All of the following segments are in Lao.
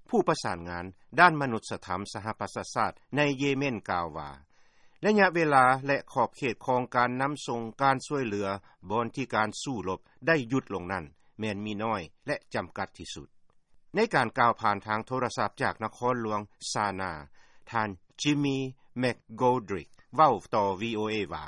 ຜູ້ປະສານງານດ້ານມະນຸດສະທຳສະຫະປະຊາຊາດໃນເຢເມັນກ່າວວ່າ ໄລຍະເວລາ ແລະ ຂອບເຂດຂອງການນຳສົ່ງການຊ່ວຍເຫຼືອ ບ່ອນທີ່ການສູ້ລົບໄດ້ຢຸດລົງນັ້ນ ແມ່ນມີນ້ອຍ ແລະ ຈຳກັດທີ່ສຸດ. ໃນການກ່າວຜ່ານທາງໂທລະສັບຈາກນະຄອນຫຼວງຊານາ, ທ່ານ Jimmy McGoldrick ເວົ້າຕໍ່ VOA ວ່າ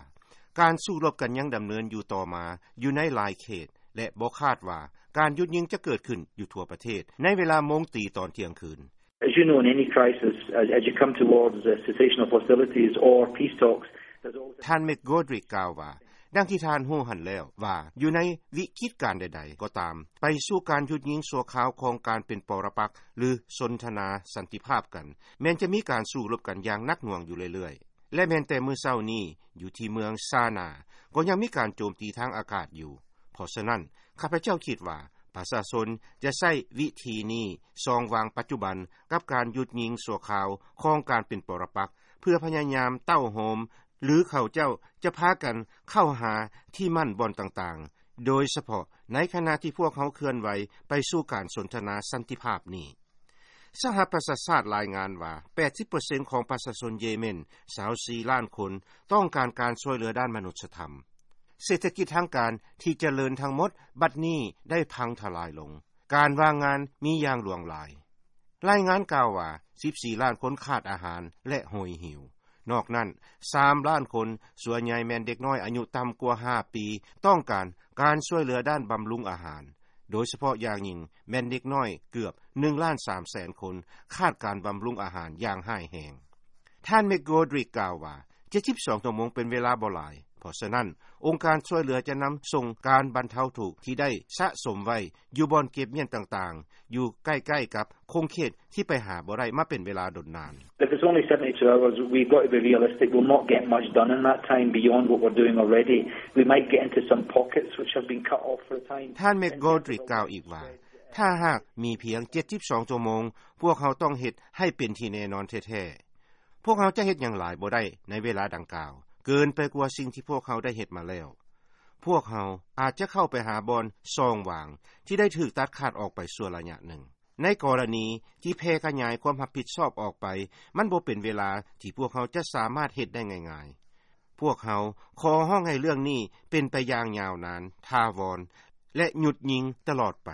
ການສູ້ລົບກັນຍັງດຳເນີນຢູ່ຕໍ່ມາຢູ່ໃນຫຼາຍເຂດ ແລະ ບໍ່ຄາດວ່າການຢຸດຍິງຈະເກີດຂຶ້ນຢູ່ທົ່ວປະເທດໃນເວລາໂມງຕີຕອນທ່ຽງຄືນ. As you know, in any crisis, as, as you come towards the cessation of hostilities or peace talks, there's always ທ່ານ McGoldrick ກ່າວວ່າ ດັ່ງທີ່ທ່ານຮູ້ຫັ້ນແລ້ວວ່າ ຢູ່ໃນວິກິດການໃດໆກໍຕາມ ໄປສູ່ການຢຸດຍິງຊົ່ວຄາວຂອງການເປັນປະລະປັກ ຫຼື ສົນທະນາສັນຕິພາບກັນ ແມ່ນຈະມີການສູ້ລົບກັນຢ່າງໜັກໜ່ວງຢູ່ເລື້ອຍໆ ແລະ ແມ່ນແຕ່ມື້ເຊົ້ານີ້ ຢູ່ທີ່ເມືອງຊານາ ກໍຍັງມີການໂຈມຕີທາງອາກາດຢູ່. ເພາະສະນັ້ນ ຂ້າພະເຈົ້າຄິດວ່າ ປະຊາຊົນຈະໃຊ້ວິທີນີ້ ຊ່ອງວ່າງປັດຈຸບັນກັບການຢຸດຍິງຊົ່ວຄາວຂອງການເປັນປະລະປັກ ເພື່ອພະຍາຍາມເຕົ້າໂຮມ ຫຼື ເຂົາເຈົ້າຈະພາກັນເຂົ້າຫາທີ່ໝັ້ນບ່ອນຕ່າງໆ ໂດຍສະເພາະໃນຂະນະທີ່ພວກເຮົາເຄື່ອນໄຫວໄປສູ່ການສົນທະນາສັນຕິພາບນີ້. ສະຫະປະຊາຊາດລາຍງານວ່າ ແປດສິບເປີເຊັນຂອງປະຊາຊົນເຢເມັນ ຊາວສີ່ລ້ານຄົນ ຕ້ອງການການຊ່ວຍເຫຼືອດ້ານມະນຸດສະທຳ. ເສດຖະກິດທາງການທີ່ຈະເລີນທັງໝົດບັດນີ້ໄດ້ພັງທະລາຍລົງ. ການວ່າງງານມີຢ່າງຫຼວງຫຼາຍ. ລາຍງານກ່າວວ່າ ສິບສີ່ລ້ານຄົນຂາດອາຫານ ແລະ ໂຫຍຫິວ. ນອກນັ້ນ ສາມລ້ານຄົນ, ສ່ວນໃຫຍ່ແມ່ນເດັກນ້ອຍອາຍຸຕ່ຳກວ່າຫ້າປີ, ຕ້ອງການການຊ່ວຍເຫຼືອດ້ານບຳລຸງອາຫານ, ໂດຍສະເພາະຢ່າງຍິ່ງແມ່ນເດັກນ້ອຍເກືອບໜຶ່ງລ້ານສາມແສນຄົນ ຂາດການບຳລຸງອາຫານຢ່າງຮ້າຍແຮງ. ທ່ານ McGoldrick ກ່າວວ່າ ເຈັດສິບສອງຊົ່ວໂມງເປັນເວລາບໍ່ຫຼາຍ, ເພາະສະນັ້ນ ອົງການຊ່ວຍເຫຼືອຈະນຳສົ່ງການບັນເທົາທຸກທີ່ໄດ້ສະສົມໄວ້ຢູ່ບ່ອນເກັບມ້ຽນຕ່າງໆ ຢູ່ໃກ້ໆກັບຂົງເຂດທີ່ໄປຫາບໍ່ໄດ້ມາເປັນເວລາດົນນານ. If it's only seventy-two hours, we've got to be realistic. We'll not get much done in that time beyond what we're doing already. We might get into some pockets which have been cut off for a time. ທ່ານ McGoldrick ກ່າວອີກວ່າ ຖ້າຫາກມີພຽງເຈັດສິບສອງຊົ່ວໂມງ, ພວກເຮົາຕ້ອງເຮັດໃຫ້ເປັນທີ່ແນ່ນອນແທ້ໆ. ພວກເຮົາຈະເຮັດຫຍັງຫຼາຍບໍ່ໄດ້ໃນເວລາດັ່ງກ່າວ ເກີນໄປກວ່າສິ່ງທີ່ພວກເຮົາໄດ້ເຮັດມາແລ້ວ. ພວກເຮົາອາດຈະເຂົ້າໄປຫາບ່ອນຊ່ອງຫວ່າງທີ່ໄດ້ຖືກຕັດຂາດອອກໄປຊົ່ວໄລຍະໜຶ່ງ. ໃນກໍລະນີທີ່ແຜ່ຂະຫຍາຍຄວາມຮັບຜິດຊອບອອກໄປ, ມັນບໍ່ເປັນເວລາທີ່ພວກເຮົາຈະສາມາດເຮັດໄດ້ງ່າຍໆ. ພວກເຮົາຂໍຮ້ອງໃຫ້ເລື່ອງນີ້ເປັນໄປຢ່າງຍາວນານ, ຖາວອນ ແລະ ຢຸດຍິງຕະຫຼອດໄປ.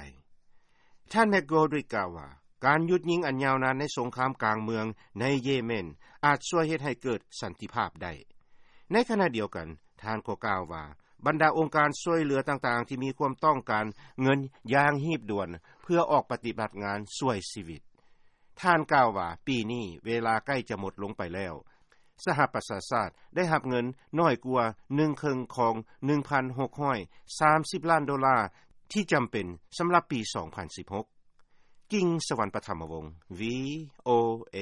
ທ່ານ McGoldrick ກ່າວວ່າ ການຢຸດຍິງອັນຍາວນານໃນສົງຄາມກາງເມືອງໃນເຢເມັນ ອາດຊ່ວຍເຮັດໃຫ້ເກີດສັນຕິພາບໄດ້. ໃນຂະນະດຽວກັນ, ທ່ານກໍກ່າວວ່າ ບັນດາອົງການຊ່ວຍເຫຼືອຕ່າງໆທີ່ມີຄວາມຕ້ອງການເງິນຢ່າງຮີບດ່ວນ ເພື່ອອອກປະຕິບັດງານຊ່ວຍຊີວິດ. ທ່ານກ່າວວ່າ ປີນີ້ເວລາໃກ້ຈະໝົດລົງໄປແລ້ວ. ສະຫະປະຊາຊາດໄດ້ຮັບເງິນໜ້ອຍກວ່າໜຶ່ງເຄິ່ງຂອງໜຶ່ງພັນຫົກຮ້ອຍສາມສິບລ້ານໂດລາທີ່ຈຳເປັນສຳລັບປີສອງພັນສິບຫົກ. ກິງ ສະຫວັນປະຖຳມະວົງ VOA.